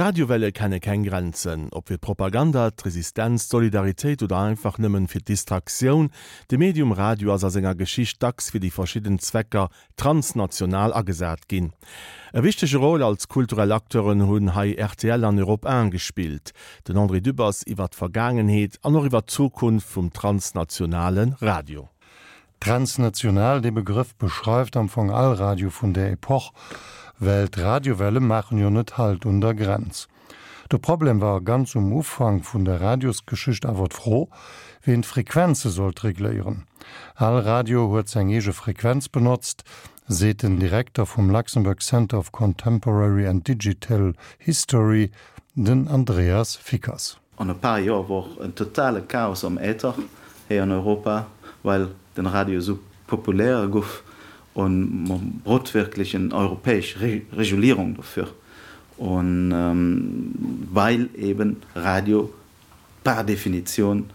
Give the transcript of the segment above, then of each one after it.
Radiowelle kenne keng Grenzen. Ob fir d'Propaganda, d'Resistenz, d'Solidaritéit oder einfach nëmmen fir d'Distraktioun, de Medium Radio ass a senger Geschicht dacks fir déi verschidden Zwecker transnational agesat ginn. E wichtege Rôle als kulturell Acteuren hunn hei rtl an Europe 1 gespillt. Den André Dübbers iwwer d'Vergaangenheet an och iwwer d'Zukunft vum transnationale Radio. Transnational, dee Begrëff beschreift am Fong all Radio vun där Epoch, well d'Radiowelle maachen jo net Halt un der Grenz. De Problem war ganz um Ufank vun der Radiosgeschicht awer d'Fro, ween d'Frequenze sollt regléieren. All Radio huet seng eege Frequenz benotzt, seet den Direkter vum Luxembourg Center of Contemporary and Digital History, den Andreas Fickers. An e paar Joer wor en totale Chaos am Äther héi an Europa, well den Radio esou populär guff un mer brot wirklech en europäesch Regulierung dofür un weil eben Radio par Definition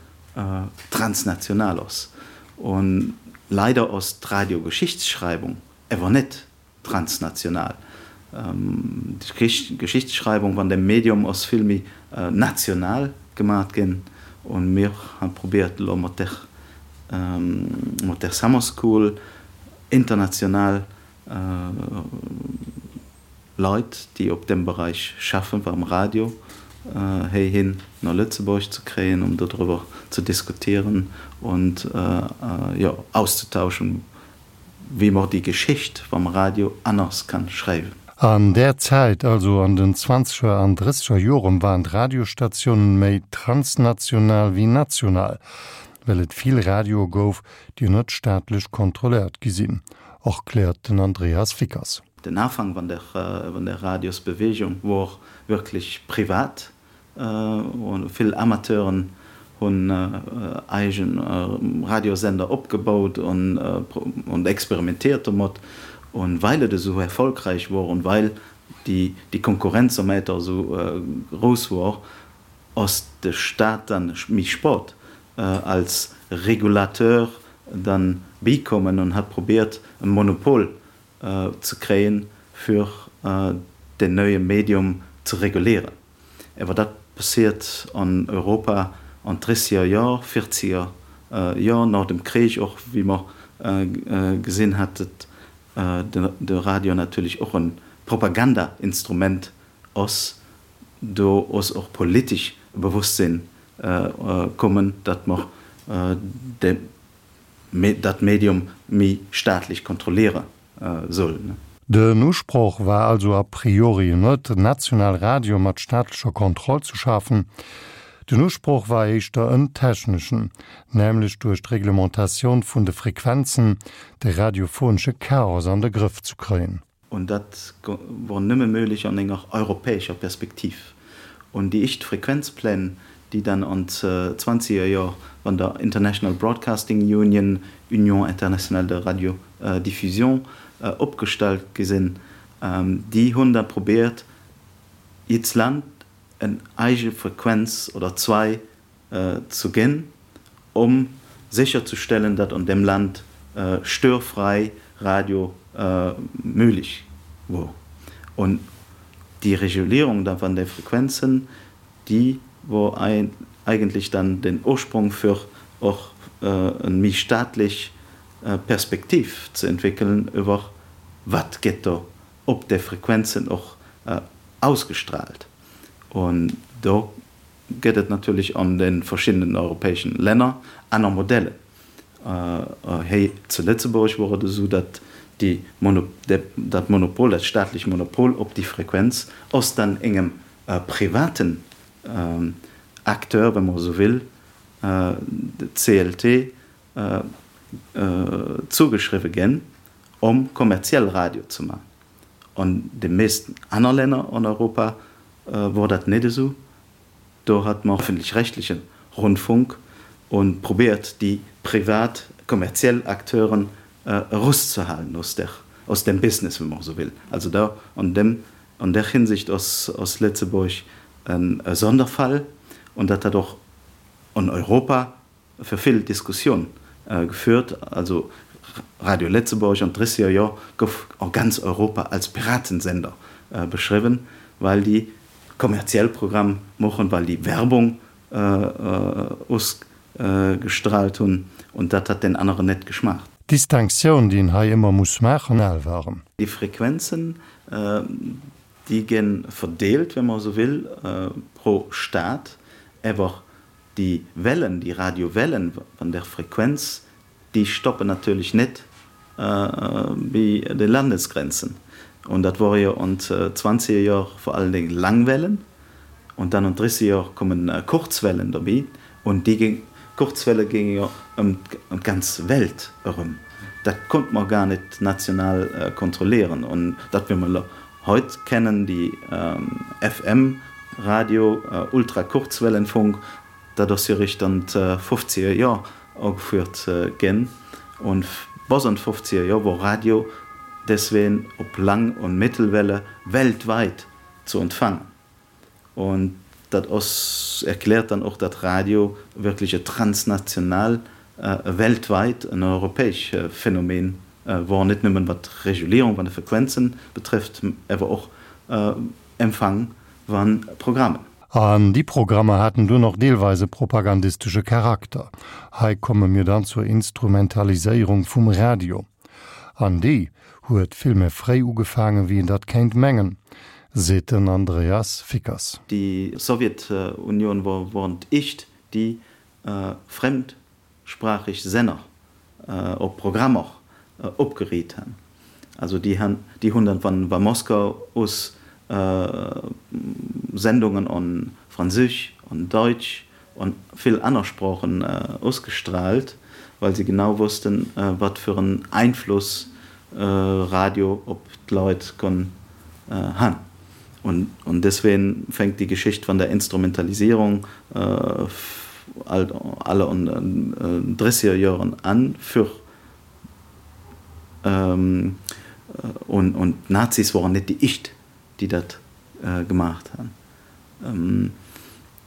transnational ass. Un leider ass d'Radiogeschichtsschreibung ewer net transnational. D'Geschichtsschreibung van dem Medium ass vill méi national gemat ginn un mir han probéiert elo mat der mat der Summer School international Leit déi op dem Bereich schaffen beim Radio héihin no Lëtzebuerg ze kréien um dodriwwer ze diskutieren und jo auszutauschen wéi mer déi Geschicht vam Radio anners kann schreiwen. An där Zäit, also an den zwanzeger an drësseger Joren, waren d'Radiostatiounen méi transnational wéi national, well et vill Radioe gouf, déi net staatlech kontrolléiert gi sinn, erkläert den Andreas Fickers. Den Afang van der van der Radiosbewegung wor wirklich privat. Vill Amateuren hunn eigen Radiosender opgebaut und experimentiert domat. Und weil et esou erfolgreich wor und weil déi Konkurrenz am Äther esou grouss wor, ass de Staat dann méi spât als Regulateur dann bikommen und hat probiert e Monopol ze kréien, fir den neue Medium ze regulieren. Ewer dat passiert an Europa an drësseger Jor, vierzeger Jor, no dem Krich och, wéi mer gesinn hat, dat de Radio natierlech och en Propagandainstrument ass. Do ass och politesch e Bewosstsinn kommen, dat mer de dat Medium méi staatlech kontrolliere soll. Den Usproch war also a priori net, en nationale Radio mat staatlecher Kontroll ze schafen. Den Usproch war éischter en techneschen, nämlech duerch d'Reglementatioun vun de Frequenzen de radiophonesche Chaos an de Grëff zu kréien. Und dat wor nëmme möglich an enger europäescher Perspektiv. Und déi éischt Frequenzpläne, déi dann an d'zwanziger Jor van der International Broadcasting Union, Union Internationale de Radiodiffusion, opgestallt gi sinn, déi hunn da probiert, jidds Land en eige Frequenz oder zwei ze ginn, om sécherzestellen, datt an deem Land störfrei Radio möglich wor. Und déi Regulierung da van de Frequenzen, déi wor eigentlich dann den Ursprung fir och en méi staatlech Perspektiv ze entwéckelen iwwer wat gëtt do op de Frequenzen och ausgestrahlt. Und do gëtt et natierlech an de verschiddenen europäeschen Länner aner Modellen. Héi zu Lëtzebuerg wor et esou, datt déi dat Monopol, dat staatlech Monopol op déi Frequenz ass dann engem privaten Acteur, wa mer esou will, de CLT, zougeschriwwe ginn, om kommerziell Radio ze man. An de meesten aner Länner an Europa wor dat net esou. Do hat mer öffentlich-rechtlichen Rundfunk und probiert déi privat kommerziell Acteuren eruszehalen aus der, aus dem Business, wenn man esou will. Also da an dem, an der Hinsicht ass, ass Lëtzebuerg e Sonderfall und dat hat och an Europa fir vill Diskussioun geführt. Also Radio Lëtzebuerg an d'drësseger Jor gouf a ganz Europa als Piratensender beschriwwen, well déi. kommerziell Programm mochen, well déi Werbung ausgestrahlt hunn und dat hat den aneren net geschmaacht. D'Distinctioun, déi een hei ëmmer muss maachen, al waren. Déi Frequenzen, déi ge verdeelt, wenn man esou will, pro Staat, awer déi Wellen, déi Radiowellen van der Frequenz, déi stoppen natierlech net bi de Landesgrenzen. Und dat wor jo an d'zwanziger Jor vor allen Dingen Langwellen und dann an d'drissiger Jor kommen Kurzwellen derbi und déi Kurzwelle géinge jo ëm d'ganz Welt erëm. Dat konnt mer gar net national kontrollieren und dat wéi mer elo heut kennen, déi FM Radio, Ultrakurzwellenfunk, Dat ass jo eréischt an d'fofzeger Jor agefuert ginn. Und bis an d'fofzeger Jor wor Radio deswegen op Lang und Mittelwelle weltweit zu empfangen. Und dat ass, erklärt dann och, dat Radio wirklich e transnational, e weltweit, en europäesch Phänomen wor, net nëmmen wat d'Regulierung van de Frequenzen betrifft, awer och Empfang van Programmen. An déi Programmer haten dunn och deelweis e propagandistesche Charakter. Hei komme mir dann zur Instrumentaliséierung vum Radio. An déi huet vill méi fréi ugefaangen, wéi een dat kéint mengen, seet den Andreas Fickers. Déi Sowjetunion wor woren d'éischt, déi fremdsprachig Senner op Programmer opgeriit han. Also déi han, déi hunn dann van va Moskau us Sendungen on Französch, on Deutsch on vill anner Sprochen usgestrahlt, well se genau wussten, wat fir en Einfluss Radio op d'Leit konn han. Und, und deswegen fängt die Geschicht von der Instrumentalisierung äh, alle an 30er Jahren an für ähm, und, und Nazis waren net die Icht, die dat äh, gemacht han. Ähm,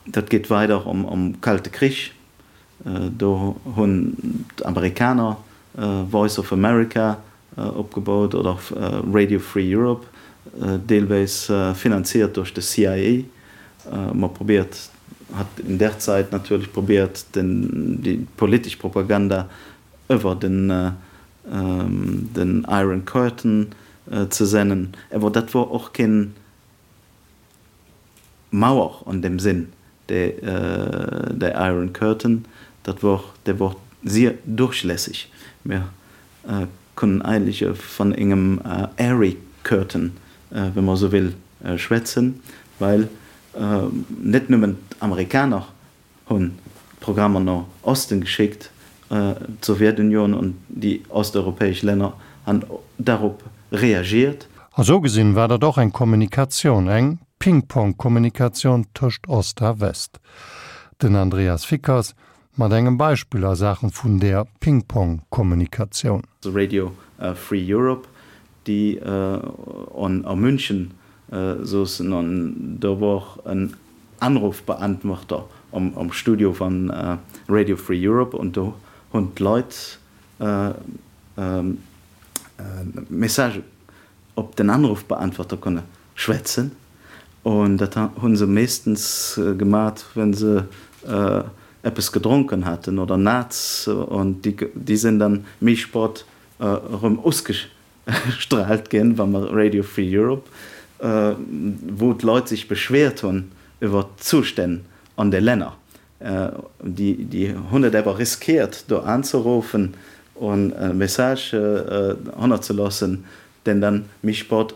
dat geht weiter um, um Kalte Krich. Äh, do hunn d'Amerikaner äh, Voice of America opgebaut oder Radio Free Europe, deelweis finanziert duerch de CIA. Ma probéiert hat in der Zeit natierlech probéiert den déi politesch Propaganda iwwer den den Iron Curtain ze sennen. Awer dat wor och keen Mauer an dem Sinn, de Iron Curtain, dat wor, dee wor sier durchlässig. Mir kënnen eigentlech van engem Airy Curtain, wa mer esou will, schwätzen, well net nëmmen d'Amerikaner hunn d'Programmer no Osten geschéckt, d'Sowjetunion an déi osteuropäesch Länner han darop reagiert. A sou gesinn war dat och eng Kommunikatioun, eng Ping-Pong-Kommunikatioun tëscht Ost a West. Den Andreas Fickers mat engem Beispill a Saachen vun där Ping-Pong-Kommunikatioun. Radio Free Europe, déi a München Sossen an do wor en Anrufbeantworter am Studio van Radio Free Europe an do hunn d'Leit Message op den Anrufbeantworter konne schwätzen an dat hunn se meeschtens gemat wenn se eppes gedronken haten oder Naz an déi sinn dann méi sport erëm usge Strahlt ginn, wa mer Radio Free Europe, wou d'Leit sech beschwert hunn iwwer d'Zustänn an de Länner, déi hunn et awer riskiert do anzeruffen an e Message hannerzeloossen, deen dann méi sport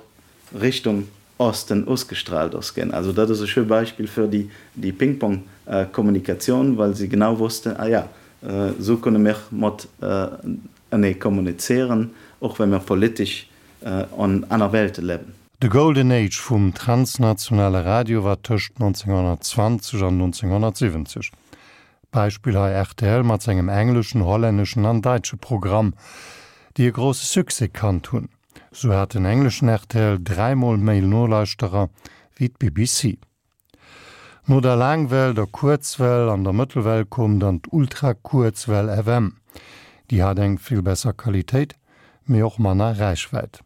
Richtung Osten ausgestrahlt ass ginn. Also dat ass e schö Beispill fir déi Ping-Pong-Kommunikatioun, well se genau wossten, ah ja, esou kënne mir mat enee kommunizieren, och wa mir politesch an aner Welte liewen. De Golden Age vum transnationale Radio war tëscht 1920 an 1970. Beispill hei rtl mat sengem engleschen, hollänneschen an daitsche Programm, déi e grousse Succès kannt hunn. Sou hat den engleschen rtl dräimol méi Nolauschterer wéi d'BBC. No der Laangwell, der Kuerzwell an der Mëttelwell koum dann d'Ultrakuerzwell FM. Déi hat eng vill besser Qualitéit, mee och manner Räichwäit.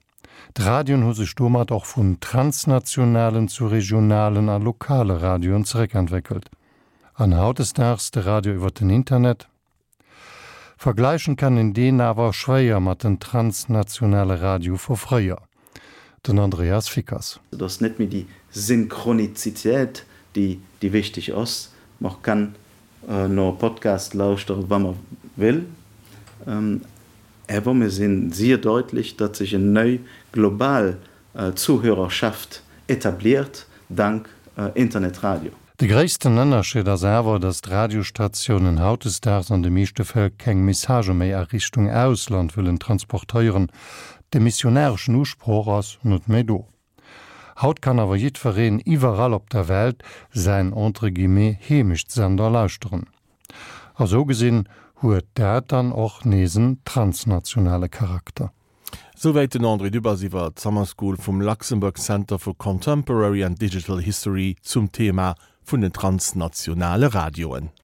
D'Radioen hu sech domat och vun transnationalen zu regionalen a lokale Radioen zeréckentwéckelt. An hautdesdaags de Radio iwwer den Internet? Vergläichen kann een deen awer schwéier mat den transnationale Radio vu fréier. Den Andreas Fickers. Et ass net méi déi Synchronizitéit, déi déi wichteg ass. Mer kann no e Podcast lauschtere wa mer wéll, awer mir sinn sier deutlich, datt sech en nei global Zuhörerschaft etabliert, dank Internetradio. De gréissten Ënnerscheed ass awer, datt d'Radiostatiounen hautdesdaags an de meeschte Fäll keng Messagë méi a Richtung Ausland wëllen transportéieren. De missionareschen Usproch ass net méi do. Haut kann awer jiddwereen iwwerall op der Welt säin entre guillemets Heemechtssender lauschteren. A sou gesinn huet dat dann och nees en transnationale Charakter. Souwäit den André Dübbers iwwer d'Summer School vum Luxembourg Center for Contemporary and Digital History zum Thema vun den transnationale Radioen.